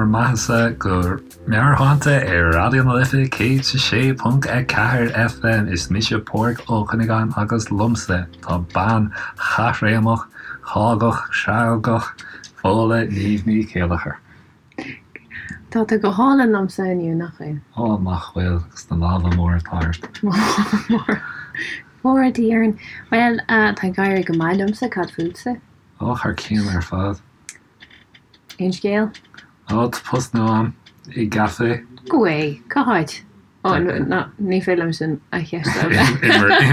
bhur mbeathasa go Meabhairshláinte ar Raidió na Life 106.4 FM. Is mise Pádraig Ó Cuinneagáin agus liomsa tá bean chaithréimeach, chágach, chreagach, Fódhla Niamh Ní Chéilleachair. Tá tú go hálainn liomsa inniu, nach bhfuil? Ó, nach bhfuil, agus na lámha móra atá ort. Lámha móra. Fóire Dia orainn. Bhuel, tá ag éirí go maith liomsa, cad fútsa? Ó, thar cionn ar fad. Aon scéal? Ó, tá post nua a'm i gcaife. Go way! Cá háit? Ó, ná, ní féidir liom sin a cheistiú. I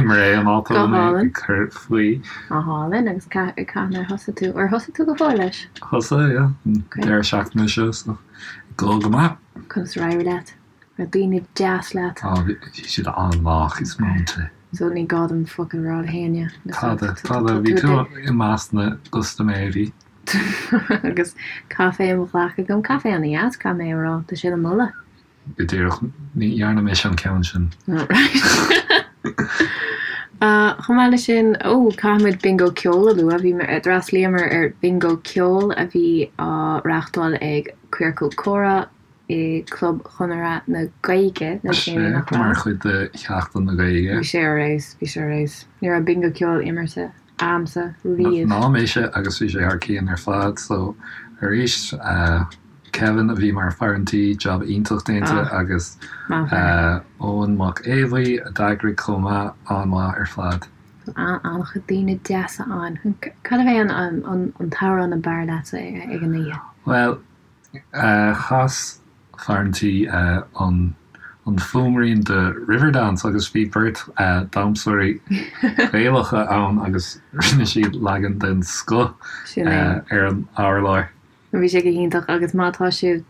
mBré an áit a bhfuil mé ag cur faoi. Go hálainn, agus cathain ar thosaigh tú? Ar thosaigh tú go fóill leis? Thosaigh, yeah, an deireadh seachtaine seo, so ag dul go maith. Conas ar éirigh leat? Raibh daoine deas leat? Ó, bhí siad an-lách is múinte. So ní gá dom focal a rá le héinne. Tada, tada, bhí tú i measc na gcustaiméirí. Agus caife i mo ghlac agam, caife ana-dheas, caithfidh mé a rá, tá sé le moladh. Go díreach, ní dhearna mise an ceann sin. Chomh maith leis sin, ó, caithfidh muid Bingo Ceoil a lua. Bhí, d'fhreastlaíomar ar Bingo Ceoil a bhí á reáchtáil ag Ciorcal Comhrá i gClub Chonradh na Gaeilge le déanaí, nach raibh? Mar chuid de Sheachtain na Gaeilge. Bhí sé ar fheabhas, bhí sé ar fheabhas. Ní raibh Bingo Ceoil imeartha a'msa riamh. Ná mise agus bhí sé thar cionn ar fad so arís Kevin a bhí mar fear an tí, jab iontach déanta agus Eoin Mac Aodha a d'eagraigh chomh maith, an-mhaith ar fad. An-chuid daoine deasa ann. Cad a bhí an t-amhrán ab fhearr leatsa ag an oíche? Bhuel, Chas fear an tí an fuaimrian de Riverdance agus bhí beirt damhsóirí Gaelacha ann agus rinne siad leagan den scoth ar an urlár. Bhí sé go hiontach agus má tá sibh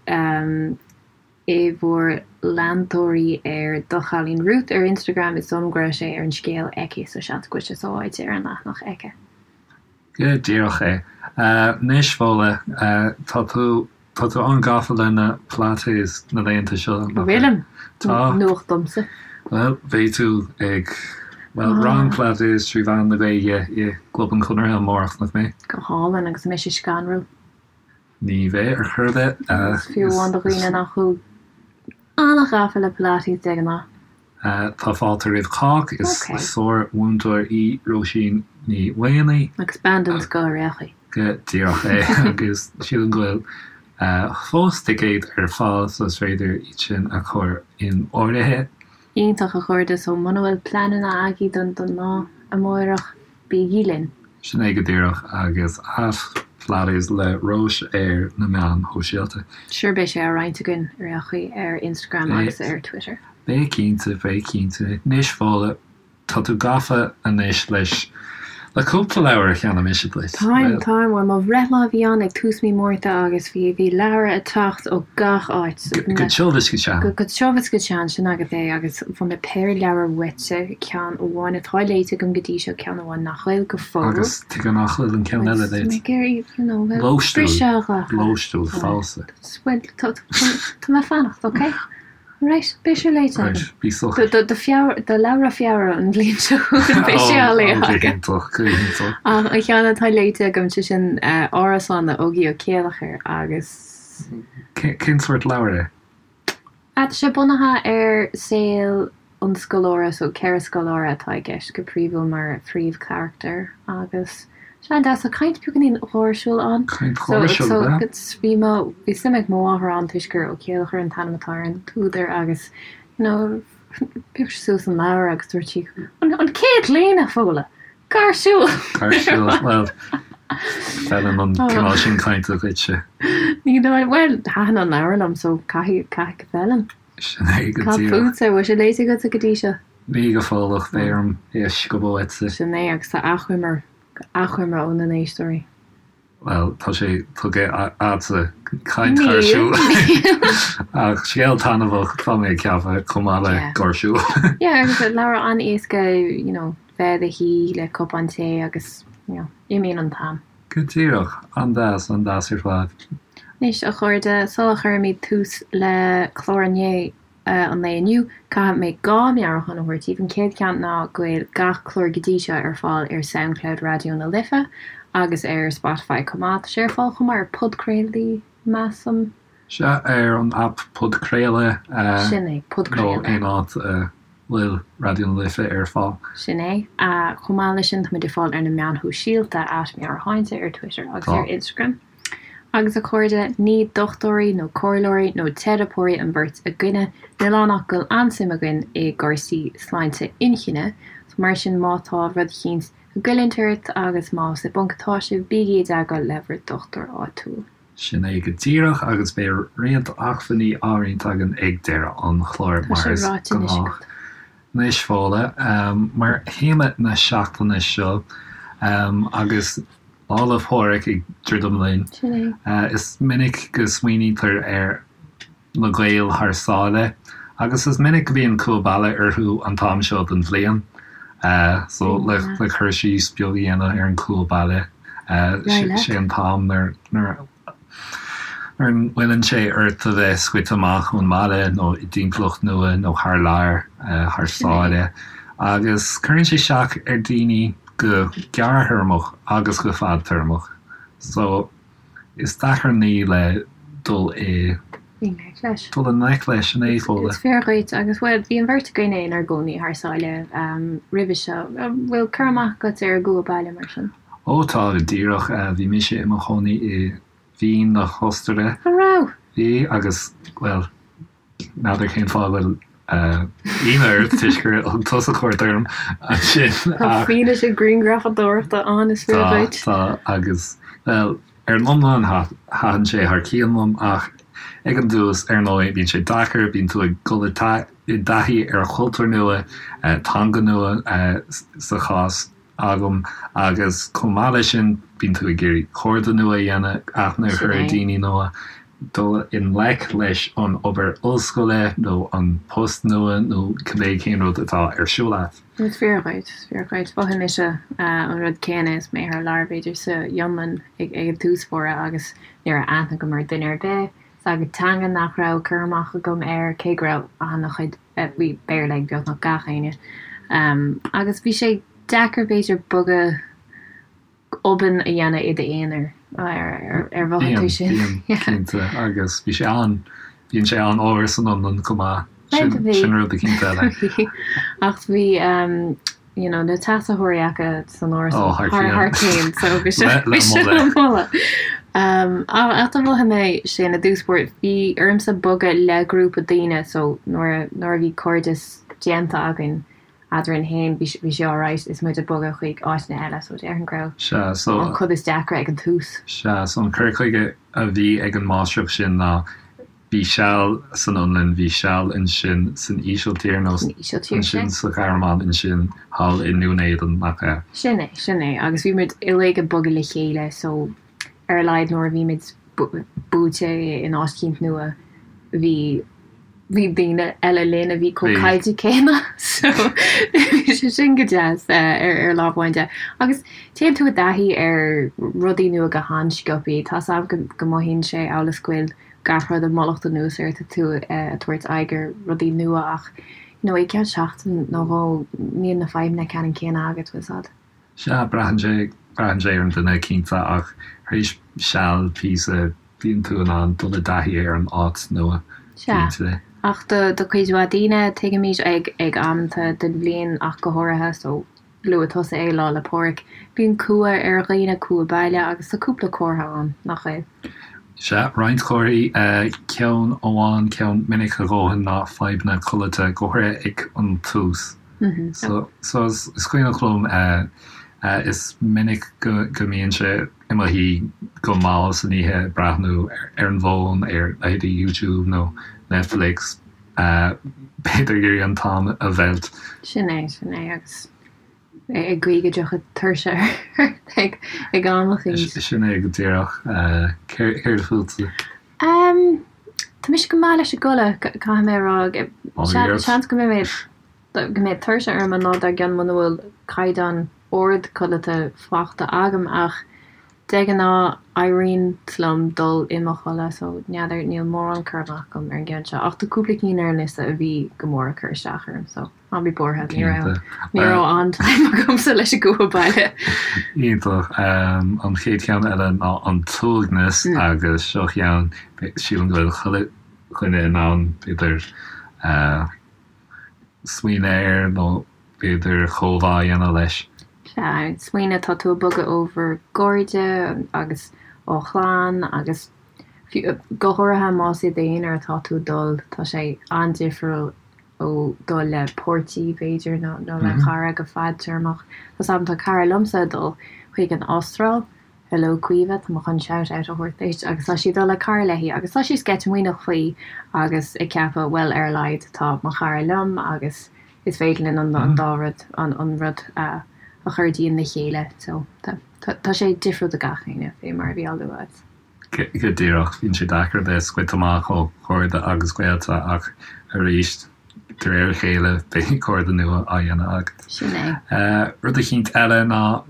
i bhur leantóirí ar Do Chailín Ruth ar Instagram is dóigh liom go raibh sé ar an scéal aici so seans go bhfuil sé sábháilte ar an leathanach aici. Go díreach é. Anois, Fódhla, tá tú, tá tú an-gafa le na Pilates na laethanta seo, nach bhfuil? Bhfuilim? Tá. Nuacht domsa. Bhuel, beidh tú ag, bhuel, rang Pilates trí mheán na Gaeilge i gClub an Chonartha amárach, nach mbeidh? Go hálainn, agus an mbeidh sé scanrúil? Ní bheidh ar chor ar bith. Agus fiú amháin do dhaoine nach bhfuil an-ghafa le Pilates de ghnáth. Tá fáilte roimh chách. Is sár-mhúinteoir í Róisín Ní Mhaonaigh. Agus bean den scoth ar aon chaoi. Go díreach é. Agus sílim go bhfuil fós ticéid ar fáil so is féidir iad sin a chur in áirithe. Iontach a chairde, so muna bhfuil pleananna agaibh don lá amárach, Bígí linn! Sin é go díreach, agus at Pilates le Róis ar na meáin shóisialta. Sure beidh sé á roinnt againn ar aon chaoi ar Instagram agus ar Twitter. Beidh cinnte, beidh cinnte. Anois Fódhla, tá tú gafa anois leis, le cúpla leabhar a cheannaigh mise duit. Táim, táim. Bhuel, mo bhreithlá a bhí ann ag tús mí Márta agus bhí, bhí leabhra ag teacht ó gach áit. Go tiubh is go teann. Go tiubh is go teann, sin agat é. Agus fuair mé péire leabhar uaitse, ceann amháin atá léite agam go dtí seo, ceann amháin nach bhfuil go fóill. Agus tuige nach bhfuil an ceann eile léite? Ag iarraidh, you know, briseadh a ghlacadh. Lóistiúil, falsa. Bhuel, tá mé ag fanacht, ok? Right, beidh sé léite agam. Right, bí socair. Do Feabhra, do leabhra Feabhra an bhliain seo chugainn, beidh sé á léamh agam. Go hiontach, go hiontach. Ach an ceann atá léite agam, sé sin Árasán le Ógie Ó Céilleachair agus. Cén sórt leabhar é? Tá sé bunaithe ar saol an scoláire, so 4 scoláire atá i gceist go príomhúil mar phríomhcharachtair agus sé an-deas. Tá caint beagáinín gháirsiúil ann. Caint gháirsiúil, ab ea? So bhí mo, bhí suim ag mo mháthair ann toisc gur Ó Céilleachair an t-ainm atá ar an t-údar agus you know phioc sí suas an leabhar agus dúirt sí an an chéad líne, Fódhla! Gáirsiúil! Gáirsiúil, bhuel, feileann an cineál sin cainte duitse. Ní dóigh, bhuel, thaitin an leabhar liom so caithfidh, caithfidh go bhfeileann. Sin é go Cad díreach. fútsa, bhfuil sé léite agatsa go dtí seo? Ní go fóill ach beidh orm é a sciobadh uaitse. Sin é, agus tá achoimre, achoimre ó na n-éisteoirí. Bhuel, tá sé tugtha a'dsa, caint gháirsiúil. Ach scéal taitneamhach, tá mé ag ceapadh, chomh maith le gáirsiúil. Yeah, agus leabhar an-éasca, you know, bheith i do shuí le cupán tae agus, you know, imíonn an t-am. Go díreach. An-deas, an-deas ar fad. Anois, a chairde, sula chuirimid tús le clár inné, an lae inniu, caithfidh mé 2 meabhrúchán a thabhairt daoibh. An chéad cheann ná go bhfuil gach clár go dtí seo ar fáil ar Soundcloud Raidió na Life agus ar Spotify chomh maith. Tá sé ar fáil chomh maith ar podchraoltaí, measaim. Sea, ar an aip Podchraoladh. Sin é, Podchraoladh. Nó aon áit a bhfuil Raidió na Life ar fáil. Sin é. Chomh maith leis sin, táimid ar fáil ar na meáin shóisialta, at Meabhairshláinte ar Twitter agus ar Instagram. Agus a chairde, ní dochtúirí nó comhairleoirí nó teiripeoirí an bheirt againne, níl ann ach go bhfuil an-suim againn i gcúrsaí sláinte inchinne, so mar sin má tá rud eicínt ag goilliúint ort agus más i bponc atá sibh, bígí i dteagmháil le bhur dochtúir áitiúil. Sin é go díreach, agus beidh roinnt acmhainní á roinnt againn ag deireadh an chláir, mar is gnách. Anois, Fódhla, mar théama na seachtaine seo, agus Lá 'le Pádraig ag druidim linn, is minic go smaoinítear ar na Gaeil thar sáile, agus is minic go mbíonn cumha baile orthu an t-am seo den bhliain. So, le cur síos beag a dhéanamh ar an chumha baile, sé an t-am nuair nuair a ngoilleann sé ort a bheith scoite amach ón mbaile nó i dtimpeallacht nua nó thar lear, thar sáile, agus cuireann sé isteach ar daoine go gearrthéarmach agus go fadtéarmach. So, is deacair an ní le dul i ngleic leis. Dul i ngleic leis, sin é, Fódhla. Is fíor dhuit, agus bhuel, bhí an bheirt againne inár gcónaí thar sáile roimhe seo. An bhfuil cur amach agat ar an gcumha baile mar sin? Ó tá, go díreach. Bhí mise i mo chónaí i Vín na hOstaire. An raibh? Bhí, agus, bhuel, n'fheadar cén fáth a bhfuil ionadh ort toisc gur thug tusa cuairt orm ansin ach. Tá fianaise grianghrafadóireachta ann, is fíor dhuit. Tá, tá, agus, bhuel, ar an iomlán thaitin sé thar cionn liom ach ag an dtús, ar ndóigh, bíonn sé deacair, bíonn tú ag dul i dtaithí ar chultúr nua, teanga nua sa chás agam agus chomh maith leis sin bíonn tú ag iarraidh cairde nua a dhéanamh, aithne a chur ar daoine nua, dul i ngleic leis an obair ollscoile nó an post nua nó cibé cén rud atá ar siúl agat. Is fíor dhuit, is fíor dhuit. Mhothaigh mise an rud céanna is mé thar lear b'fhéidir sa Fhionlainn ag an tús báire agus ní raibh aithne agam ar duine ar bith, is agus teanga nach raibh cur amach agam air cé go raibh an-chuid bhí Béarla ag beagnach gach éinne. Agus bhí sé deacair b'fhéidir bogadh obann a dhéanamh i d'aonar, ar mhothaigh tú sin? Bíonn, bíonn, cinnte. Agus bhí sé an, bíonn sé an-fhuar san Fhionlainn chomh maith. Sin, sin rud eicínt eile. Bhí. Ach bhí, you know, na teasaitheoirí acu san árasán thar thar cionn, so bhí sé bhí sé le moladh. Ach do mhothaigh mé sin i dtús báire, bhí ormsa bogadh le grúpa daoine, so nuair nuair a bhí cairdeas déanta againn eadrainn féin, bhí bhí sé alright is muid ag bogadh chuig áiteanna eile, so déarfainn go raibh Sea, so an chuid is deacra ag an tús. Sea, so an cur chuige a bhí ag an máistreacht sin ná Bhí seal san Fhionlainn, bhí seal ansin san Ísiltír nó ansin sa Ghearmáin, ansin thall i nDún Éideann, nach ea? Sin é, sin é. Agus bhí muid uilig ag bogadh le chéile so ar a laghad nuair a bhí muid buailte in áit eicínt nua bhí, bhí daoine eile linn a bhí chomh caillte céanna so bhí sé sin go deas ar, ar lámh amháin de. Agus téann tú i dtaithí ar rudaí nua go han-sciobthaí. Tá's a'm go, go mothaíonn sé amhail is go bhfuil gach rud ag mullacht anuas ort tú ag tabhairt aghaidh ar rudaí nua ach you know i gceann seachtain nó dhó níl na fadhbanna ceannann céanna agat bhfuil 's a'd. Sea, braitheann sé, braitheann sé ar an duine cinnte ach tar éis seal píosa bíonn tú in ann dul i dtaithí ar an áit nua, Sea, cinnte. ach do do chuid mhaith daoine tuigimid ag ag amanta den bhliain ach go háirithe so Luaigh tusa é Lá 'le Pádraig. Bíonn cumha ar dhaoine, cumha baile, agus tá cúpla comhartha ann, nach bhfuil? Sea, roinnt comharthaí. Ceann amháin, ceann minic a dhóthain ná fadhbanna codlata, go háirithe ag an tús. So, so is cuimhneach liom, is minic go mbínnse i mo shuí go mall san oíche ag breathnú ar an bhfón, ar leithéidí YouTube nó Netflix, B'fhéidir ag iarraidh an t-am a mheilt. Sin é, sin é, agus ag guí go dtiocfadh tuirse ort ag ag am eicínt. Sin é go díreach. Céard fútsa? Tá mise go maith leis an gcodladh, caithfidh mé a rá. Seans go mbeidh mé, go mbeidh tuirse orm an lá dár gcionn muna bhfuil caighdeán ard codlata faighte agam ach. De ghnáth, éiríonn liom dul i mo chodladh so n'fheadar, níl mórán cur amach agam ar an gceann seo ach tá cúpla cinn ar an liosta a bhí go mór ag cur isteach orm so ná bí buartha, ní raibh, ní raibh an-time agamsa leis an gcumha baile. Iontach. An chéad cheann eile ná an t-uaigneas agus seo ceann, sílim go bhfuil chuile dhuine in ann b'fhéidir smaoineamh air nó b'fhéidir comhbhá a dhéanamh leis. Sea, smaoineamh, tá tú ag bogadh ó bhur gcairde agus ó chlann agus fiú, go háirithe más i d'aonar atá tú ag dul, tá sé an-difriúil ó dul le páirtí, b'fhéidir, nó nó le cara go fadtéarmach. Tá 's agam, tá cara liomsa ag dul chuig an Astráil, Hello Caoimhe, tá mé chun shout out a thabhairt duit, agus tá sí ag dul le cara léi agus tá sí sceitimíneach faoi agus ag ceapadh bhuel ar a laghad tá mo chara liom agus is féidir linn an dá rud, an rud a chur dínn le chéile so tá sé difriúil do gach éinne fé mar a bhí á lua agat. Go díreach, bíonn sé deacair bheith scoite amach ó chairde agus gaolta ach arís de réir a chéile beidh cairde nua á dhéanamh agat. Sin é. Rud eicínt eile ná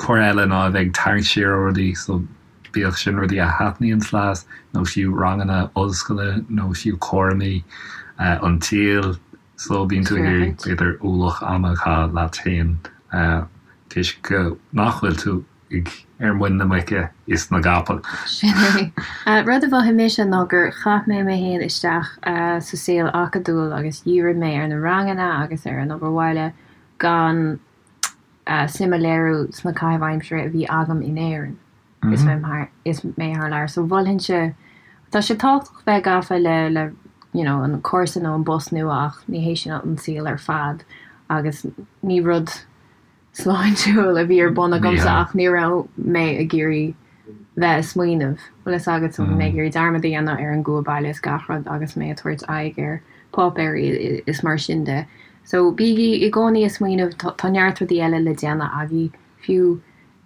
Comhartha eile ná a bheith ag tarraingt siar ó rudaí, so bíodh sin rudaí a thaitníonns leat nó fiú ranganna ollscoile nó fiú cúraimí an tsaoil, so bíonn tú ag iarraidh b'fhéidir ualach ama a chaitheamh leat féin toisc go nach bhfuil tú ag ar muin na muice is na gcapall. Sin é. Rud a mhothaigh mise ná gur chaith mé mé féin isteach sa saol acadúil agus dhírigh mé ar na ranganna agus ar an obair bhaile gan suim a léiriú sna caithimh aimsire a bhí agam in Éirinn is mé is mé thar lear. So mholfainnse, tá sé tábhachtach bheith gafa le le you know an cúrsa nó an bpost nua ach ní hé sin an saol ar fad agus ní rud sláintiúil a bhí ar bun agamsa ach ní raibh mé ag iarraidh bheith ag smaoineamh, bhfuil fhios agat, so bhí mé ag iarraidh dearmad a dhéanamh ar an gcumha baile is gach rud agus mé ag tabhairt aghaidh ar páipéirí is mar sin de. So bígí i gcónaí ag smaoineamh, tá neart rudaí eile le déanamh agaibh, fiú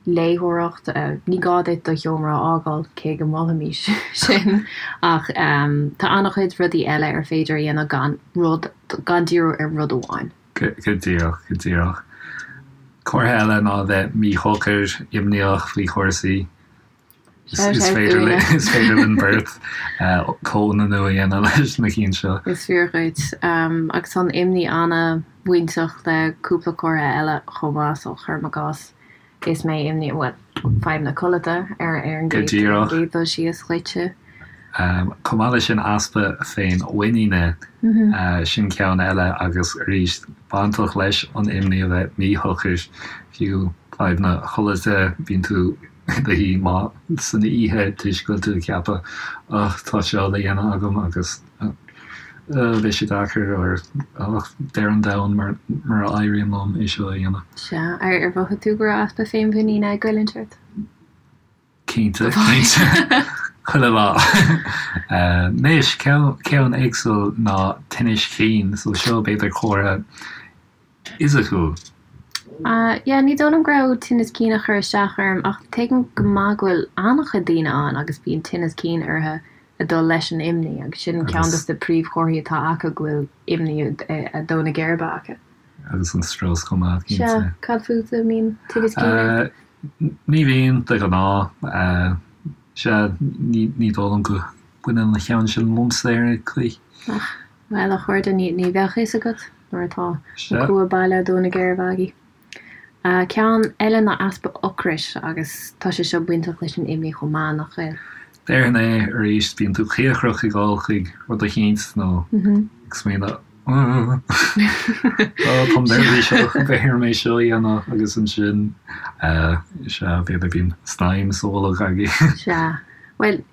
léitheoireacht, ní gá duit do sheomra a fhágáil, cé go molfaimis sin, ach tá an-chuid rudaí eile ar féidir a dhéanamh gan rud, gan díriú ar rud amháin. Go díreach, go díreach. Comhartha eile ná a bheith míshocair, imníoch faoi chúrsaí. Is féidir linn beirt comhionannú a dhéanamh leis na cinn seo. Is fíor dhuit. Agus tá an imní an-bhainteach le cúpla comhartha eile chomh maith, so cuirim i gcás is mé imníoch, bhuel, fadhb na codlata ar an gcéad dul síos dhuitse. Chomh maith leis sin easpa féinmhuiníne, sin ceann eile agus arís bainteach leis an imní a bheith míshocair, fiú fadhb na codlata, bíonn tú i do shuí mall san oíche toisc go bhfuil tú ag ceapadh ach tá seo le dhéanamh agam agus beidh sé deacair or ach deireadh an domhain mura éiríonn liom é seo a dhéanamh. Sea, ar mhothaigh tú go raibh easpa féinmhuiníne ag goilliúint ort? Cinnte, cinnte. Chuile lá. Anois, ceann éagsúil ná tinnis chinn, so seo b'fhéidir comhartha fhisiciúil. Yeah, ní dóigh liom go raibh tinneas cinn ag cur isteach orm ach tuigim go maith go bhfuil an-chuid daoine ann agus bíonn tinneas cinn orthu ag dul leis an imní agus sin ceann dos na príomhchomharthaí atá acu go bhfuil imní ag dó na geirbe acu. Agus an strus chomh maith, cinnte. Sea, cad fútsa, an mbíonn tinneas cinn ort? Ní bhíonn, de ghnáth. Sea, ní dóigh liom go mbaineann an ceann sin liomsa ar aon chaoi. Ach. Bhuel, a chairde, ní bheadh a fhios agat nuair atá an cumha baile ag dó na geirbe agaibh. Ceann eile ná easpa ocrais agus tá sé seo bainteach leis an imní chomh maith, nach bhfuil? Déarfainn é arís, bíonn tú cíocrach ag dul chuig rud eicínt nó ag smaoineamh Ó, táim neirbhíseach, beidh orm é seo a dhéanamh agus ansin, sea, b'fhéidir bíonn snaidhm sa bholg agaibh. Sea. Bhuel,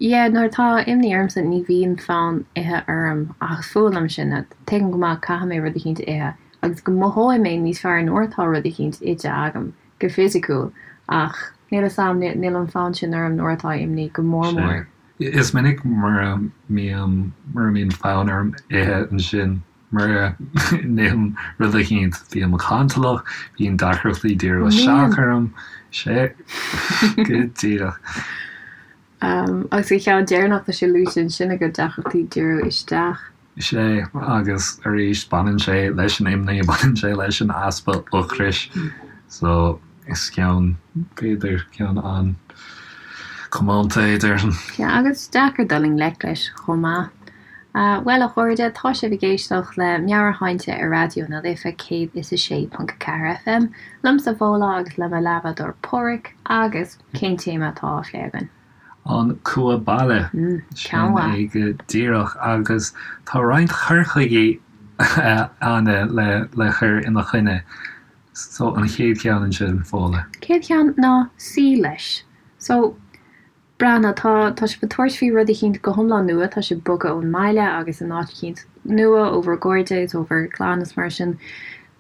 Yeah, nuair atá imní ormsa ní bhíonn fonn ithe orm ach is fuath liom sin. Tuigim go maith caithfidh mé rud eicínt a ithe agus go mothóidh mé níos fearr nuair atá rud eicínt ite agam go fisiciúil ach níl 'fhios a'm, níl an fonn sin orm nuair atá imní go mór mór. Is minic mura mbíonn mura mbíonn fonn orm ithe ansin mura n-ithim rud eicínt bím cantalach, bíonn deacrachtaí díriú isteach orm, sea, go díreach. Agus an ceann deireanach, tá sé luaite ansin agat, deacrachtaí díriú isteach. Sea, agus arís, baineann sé leis an imní, baineann sé leis an easpa ocrais. So. Is ceann, b'fhéidir, ceann an-chomónta é, déarfainn. Sea, agus deacair dul i ngleic leis chomh maith. Bhuel, a chairde, tá sibh ag éisteacht le Meabhairshláinte ar Raidió na Life 106.4 FM, liomsa Fódhla agus le mo leathbhádóir Páraic, agus cén téama atá á phlé againn? An cumha baile. Ceann Sin é go díreach, agus tá roinnt cur chuigí ann le cur ina choinne. So, an chéad cheann ansin, Fódhla. Chéad cheann ná suí leis. So, breathnaigh, tá, tá sibh ag tabhairt faoi rud eicínt go hiomlán nua, tá sibh ag bogadh ón mbaile agus in áit eicínt nua, ó bhur gcairde is ó bhur gclann is mar sin.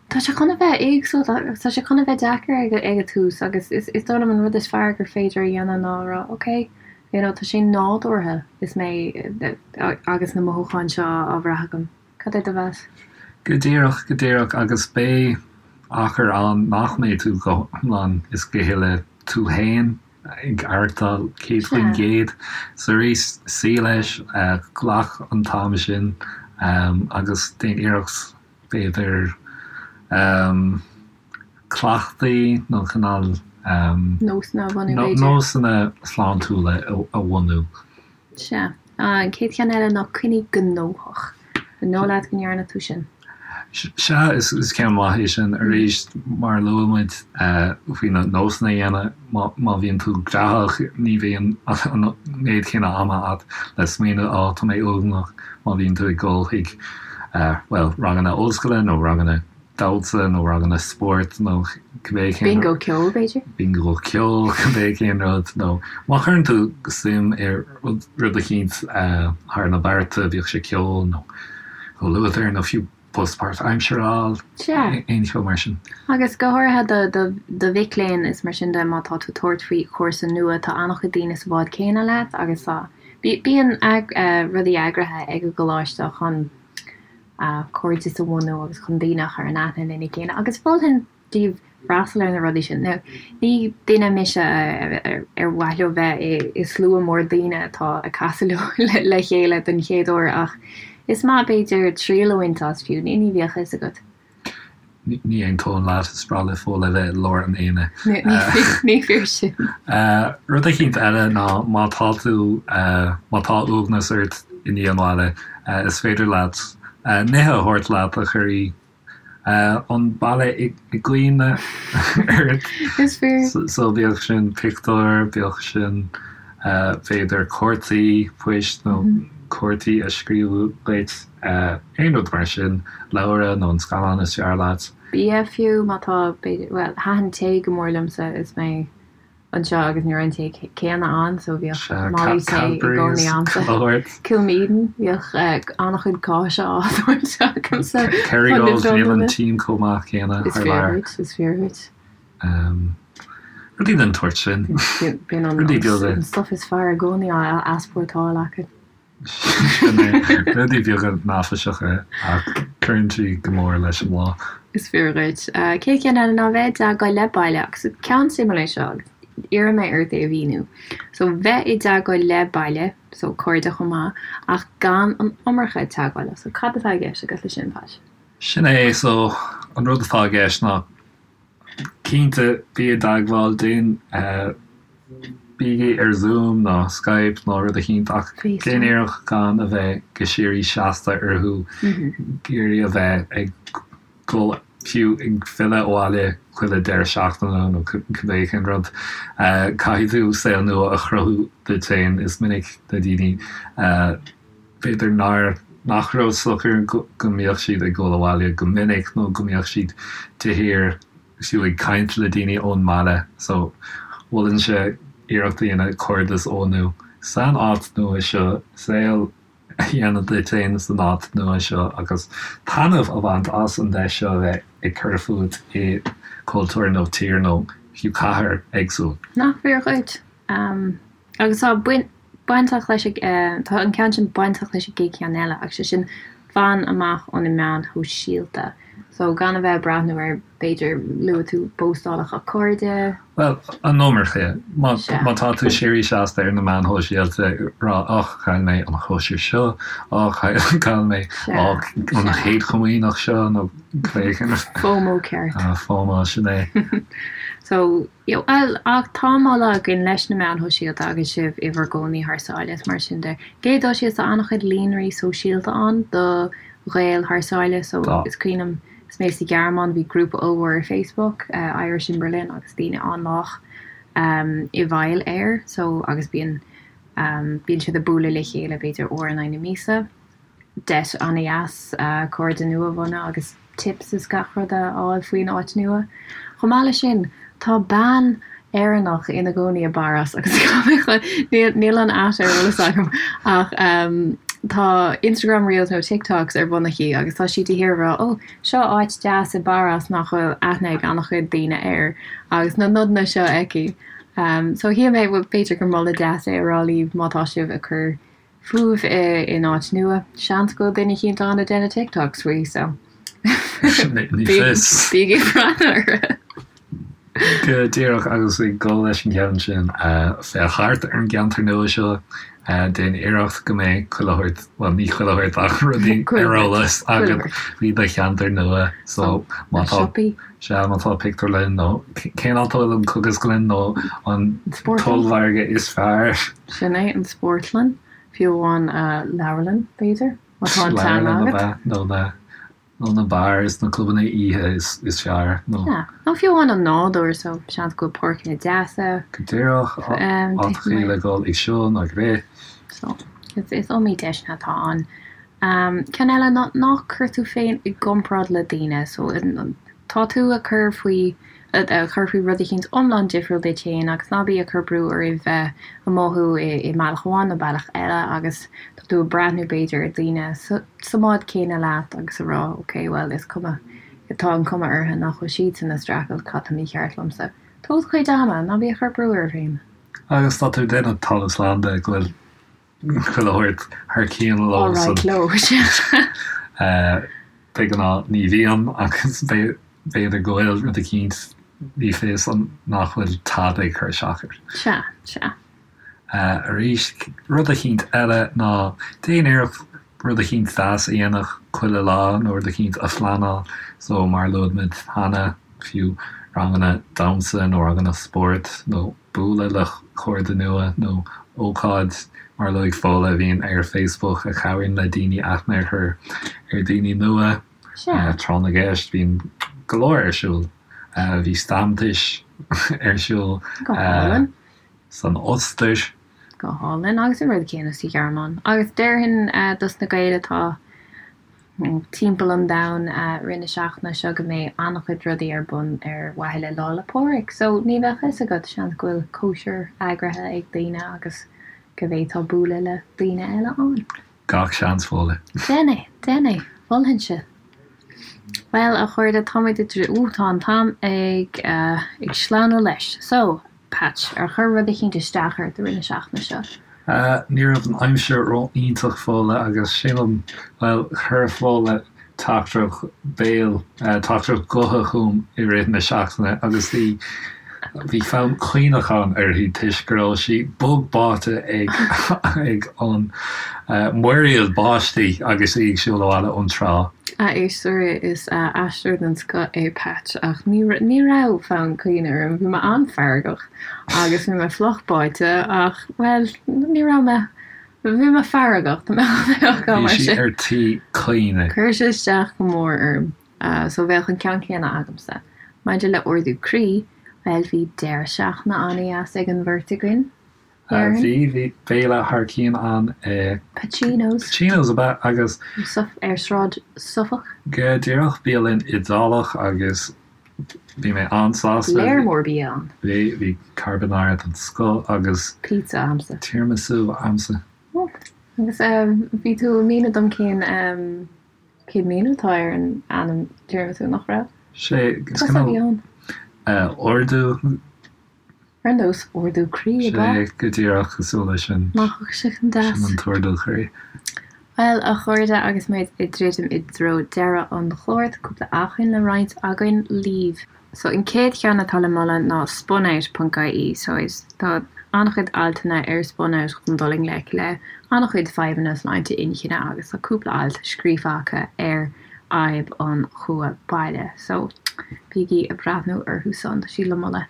Tá sé chun a bheith éagsúil, tá sé chun a bheith deacair ag, ag an tús agus is, is dóigh liom an rud is fearr gur féidir a dhéanamh ná a rá, ok, you know, tá sé nádúrtha is mé agus na mothúcháin seo á bhrath agam. Cad é do mheas? Go díreach, go díreach, agus beidh achar ann nach mbeidh tú go hiomlán is go huile tú fhéin ag aireachtáil 100%. So arís, suí leis, glac an t-am sin agus déan iarracht b'fhéidir cleachtaí nó cineál Nósanna a bhunú b'fhéidir. Nósanna sláintiúla a bhunú. Sea. An chéad cheann eile ná coinnigh gnóthach. An dóigh leat go ndearna tú sin? Sea, is ceann maith é sin. Arís, mar a luaigh muid faoi na nósanna a dhéanamh, má bhíonn tú graitheach, ní bhíonn an méid céanna ama agat le smaoineamh, á, tá mé uaigneach, má bhíonn tú ag dul chuig, bhuel, ranganna ollscoile nó ranganna damhsa nó ranganna spóirt nó cibé cén Bingo ceoil, b'fhéidir? Bingo ceoil, cibé cén rud. Nó má chuireann tú suim i rud eicínt thar na bearta, bíodh sé ceol nó comhluadar nó fiú post páirtaimseartha a fháil, Sea. aon cheo mar sin. Agus go háirithe do do mhic léinn is mar sin de, má tá tú ag tabhairt faoi chúrsa nua, tá an-chuid daoine sa bhád céanna leat agus tá, bíonn rudaí eagraithe ag an gcoláiste chun cairdeas a bhunú agus chun daoine a chur in aithne lena chéile agus mholfainn daoibh freastal ar na rudaí sin. Now, ní duine mise ar mhaith leo bheith i slua mór daoine atá ag casadh leo le chéile don chéad uair ach is maith b'fhéidir triail a bhaint as fiú, ní bheadh a fhios agat. Ní aontóinn leat, is breá le Fódhla bheith i lár an aonaigh. Ní fíor sin. Rud eicínt eile ná má tá tú, má tá uaigneas ort i ndiaidh an bhaile, is féidir leat nithe a thabhairt leat a chuirfidh an baile i gcuimhne ort. Is fíor. So bíodh sin pictiúr, bíodh sin b'fhéidir cártaí poist nó cártaí a scríobhadh duit. Aon rud mar sin, leabhar nó an scannán is fearr leat. Bia fiú, má tá, b'fhéidir, bhuel, thaitin tae go mór liomsa is mé anseo agus ní raibh an tae céanna ann so bhíodh málaí tae i gcónaí a'msa. Kilmeaden, bhíodh an-chuid cáise á thabhairt agamsa. Kerrygold, níl an tím chomh maith céanna thar lear. Is fíor duit, is fíor duit. Rudaí den tsórt sin. Bíonn an stuif is fearr i gcónaí á easpórtáil acu. Sin é. Rudaí beaga neafaiseacha ach cuireann siad go mór leis an lá. Is fíor dhuit. Chéad cheann eile ná bheith i dteagmháil le baile agus ceann suimiúil é seo agus iarrfaidh mé ort é a mhíniú. So bheith i dteagmháil le baile, so cairde chomh maith, ach gan an iomarca teagmhála. So cad atá i gceist agat leis sin, Pat? Sin é, so an rud atá i gceist ná Cinnte, bí i dteagmháil, déan, bígí ar Zoom nó Skype nó rud eicínt ach déan iarracht gan a bheith go síoraí seasta orthu, ag iarraidh a bheith ag dul fiú ag filleadh abhaile chuile deireadh seachtaine nó cibé cén rud. Caithfidh tú saol nua a chruthú duit féin. Is minic na daoine, b'fhéidir nár, nach raibh socair go mbíodh siad ag dul abhaile go minic nó go mbíodh siad de shíor fiú ag caint le daoine ón mbaile so mholfainnse iarracht a dhéanamh cairdeas a bhunú san áit nua seo, saol a dhéanamh duit féin san áit nua seo agus taitneamh a bhaint as an deis seo a bheith ag cur fút i cultúr nó tír nó fiú cathair éagsúil. Nach fíor dhuit? Agus tá bainteach leis, tá an ceann sin bainteach leis an gcéad cheann eile, agus sé sin fan amach ó na meáin shóisialta. So gan a bheith ag breathnú ar, b'fhéidir, luaigh tú póstálacha cairde. Bhuel, an iomarca. Má tá tú síoraí seasta ar na meáin shóisialta ag rá och, chaill mé an chóisir seo, och, chaill mé an chéad chomaoineach seo nó cibé cén rud. FOMO ceart. FOMO, sin é. So, you know, bhuel, ach tá moladh againn leis na meáin shóisialta agus sibh i bhur gcónaí thar sáile is mar sin de. Céad dul síos, tá an-chuid líonraí sóisialta ann do Ghaeil thar sáile so Tá. is cuimhin liom is mé sa Ghearmáin bhí grúpa ollmhór ar Facebook, Irish in Berlin agus daoine an-lách i bhfeighil air so agus bíonn bíonn siad ag bualadh le chéile b'fhéidir uair in aghaidh na míosa. Deis an-dheas cairde nua a bhunú agus tips is gach rud a fháil faoin áit nua. Chomh maith leis sin, tá bean Éireannach ina gcónaí i bPáras agus níl an at ar eolas agam ach tá Instagram Reels nó TikToks ar bun aici agus tá sí de shíor ag rá 'Ó, seo áit deas i bPáras nach bhfuil aithne ag an-chuid daoine air' agus na nodanna seo aici. So shíl mé, bhuel, b'fhéidir gur moladh deas é a rá libh má tá sibh ag cur fúibh in áit nua. Seans go bhfuil duine eicínt ann ag déanamh TikToks faoi, so Ní fios. bígí ag breathnú orthu. Go díreach agus ag dul leis an gceann sin, féach thart ar an gceantar nua seo, déan iarracht go mbeidh chuile shórt, bhuel ní chuile shórt ach rudaí ar eolas agat faoi do cheantar nua. So má tá, sea, má tá pictiúrlann nó cén áit a bhfuil an cógaslann nó an t-ollmhargadh is fearr. Sin é, an spórtlann, fiú amháin leabharlann, b'fhéidir, má tá an teanga Leabharlann ab agat. ea, nó na, nó na beáir is na clubanna oíche is, is fearr, nó. Sea, nó fiú amháin an nádúr, so seans go bhfuil páirceanna deasa. Go díreach, áiteachaí le dhul ag siúl nó ag rith. So, is, is iomaí deiseanna atá ann. Ceann eile ná ná cuir tú féin i gcomparáid le daoine, so tá tú ag cur faoi ag cur faoi rud eicínt iomlán difriúil duit féin agus ná bí ag cur brú oraibh bheith ag mothú i mbealach amháin nó bealach eile agus tá tú ag breathnú b'fhéidir ar daoine sa mbád céanna leat agus ag rá ok bhuel is cuma tá an cuma orthu nach bhfuil siadsan ag streachailt cad tá mícheart liomsa. Tóg do chuid ama, ná bí ag cur brú oraibh féin. Agus tá tú ag déanamh talamh slán de go bhfuil chuile shórt thar cionn leo san. Alright leo, sea. De ghnáth ní bhíonn agus b'fhéidir go bhfuil rud eicínt, ní fios an nach bhfuil tada ag cur isteach air. Sea, sea. Arís, rud eicínt eile ná déan iarracht rud eicínt deas a dhéanamh chuile lá nó rud eicínt a phleanáil. So mar a luaigh muid cheana, fiú ranganna damhsa nó ranganna spóirt nó bualadh le cairde nua nó ócáid mar a luaigh Fódhla a bhíonn ar Facebook a chabhraíonn le daoine aithne a chur ar daoine nua. Tráth na gCeist, bíonn go leor ar siúl. Bhí Stammtisch ar siúl san Ostair. Go hálainn. Agus an rud céanna sa Ghearmáin. Agus déarfainn dos na Gaeil atá timpeall an domhain i rith na seachtaine seo go mbeidh an-chuid rudaí ar bun ar mhaithe le Lá 'le Pádraig. So ní bheadh fhios agat, seans go bhfuil cóisir eagraithe ag daoine agus go bhféadfá bualadh le daoine eile ann. Gach seans, Fódhla. Déan é, déan é, mholfainnse. Bhuel, a chairde, táimid i dtreo, ooh, tá an t-am ag, ag sleamhnú leis. So, Patch, ar chuir rud eicínt isteach ort i rith na seachtaine seo? Ní raibh an aimsir ró-iontach Fódhla agus sílim, bhuel, chuir Fódhla teachtaireacht béil, teachtaireacht gutha chugam i rith na seachtaine agus bhí, bhí fonn caoineacháin uirthi toisc go raibh sí bog báite ag, ag an muiríl báistí agus í ag siúl abhaile ón trá. A éisteoirí, is aisteoir den scoth é Patch ach ní, ní raibh fonn caoineadh orm, bhí mé an-fheargach agus bhí mé fliuch báite ach, bhuel, ní raibh mé, bhí mé feargach, tá mé Bhí mar sí sin. ar tí caoineadh. Chuir sé isteach go mór orm, so bheadh an ceann céanna agamsa. Maidir le ardú croí, bhuel, bhí deireadh seachtaine an-dheas ag an bheirt againn. Bhí, bhí béile thar cionn ann i. Pacino's. Pacino's ab ea agus. Ar Sráid Suffolk. Go díreach, bialann Iodálach agus bhí mé an-sásta. Léar mór bia ann. Bhí, bhí carbonara den scoth agus. Pizza a'msa. Tiramisu a'msa. Agus bhí tú ag míniú dom cén, cén míniú atá ar an ainm tiramisu, nach raibh? Sé, is cineál ardú. Ar nós ardú croí, ab ea? Sea, go díreach cosúil leis sin. Nach bhfuil sé chomh deas? Sin an t-ardú croí. Bhuel, a chairde, agus muid ag druidim i dtreo deireadh an chláir, tá cúpla acmhainn le roinnt againn libh. So, an chéad cheann atá le moladh ná spunout ponc ie. So, is, tá an-chuid altanna ar spunout chun dul i ngleic le an-chuid fadhbanna sláinte inchinne agus tá cúpla alt scríofa acu ar fhadhb an chumha baile. So. Bígí ag breathnú orthu san, tá siad le moladh.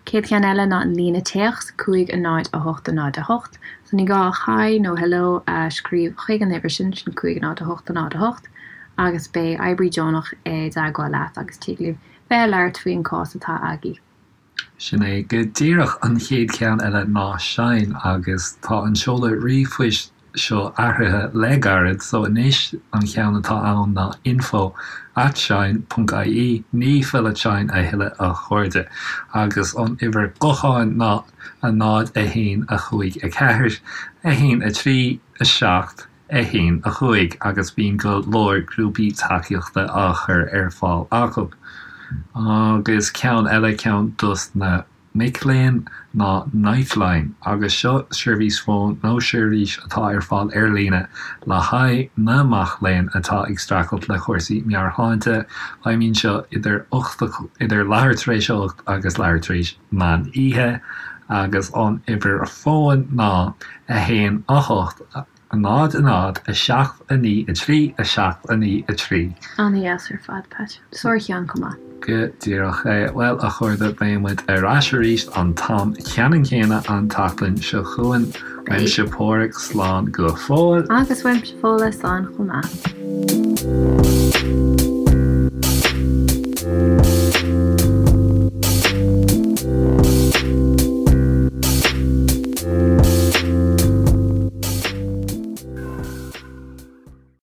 Céad cheann eile ná an líne téacs, 5 0 8 0 8. So ní gá ach hi nó hello a scríobh chuig an uimhir sin, sin 5 0 8 0 8, agus beidh oibrí deonach i dteagmháil leat agus tig libh bheith ag labhairt faoin cás atá agaibh. Sin é go díreach. An chéad cheann eile ná Shine agus tá an seoladh ríomhphoist seo athraithe le gairid so anois an cheann atá ann ná info at shine ponc ie, ní fill at shine a thuilleadh a chairde. Agus an uimhir gutháin ná 0 1 5 4 1 3 7 1 5 agus bíonn go leor grúpaí tacaíochta á chur ar fáil acu. Agus ceann eile, ceann dos na mic léinn ná Lifeline agus seo seirbhís fóin nó seirbhís atá ar fáil ar líne le haghaidh na mac léinn atá ag streachailt le cúrsaí meabhairshláinte. Feidhmíonn seo idir 8 idir leathuair tar éis a 8 agus leathuair tar éis meán oíche agus an uimhir fóin ná 1 8 0 0 7 9 3 7 9 3. An-dheas ar fad, Pat. Sár-cheann chomh maith. Go díreach é. Bhuel, a chairde, beidh muid ar ais arís an t-am ceannann céanna an tseachtain seo chugainn. Uaimse Páraic, slán go fóill. Agus uaimse Fódhla, slán chomh maith.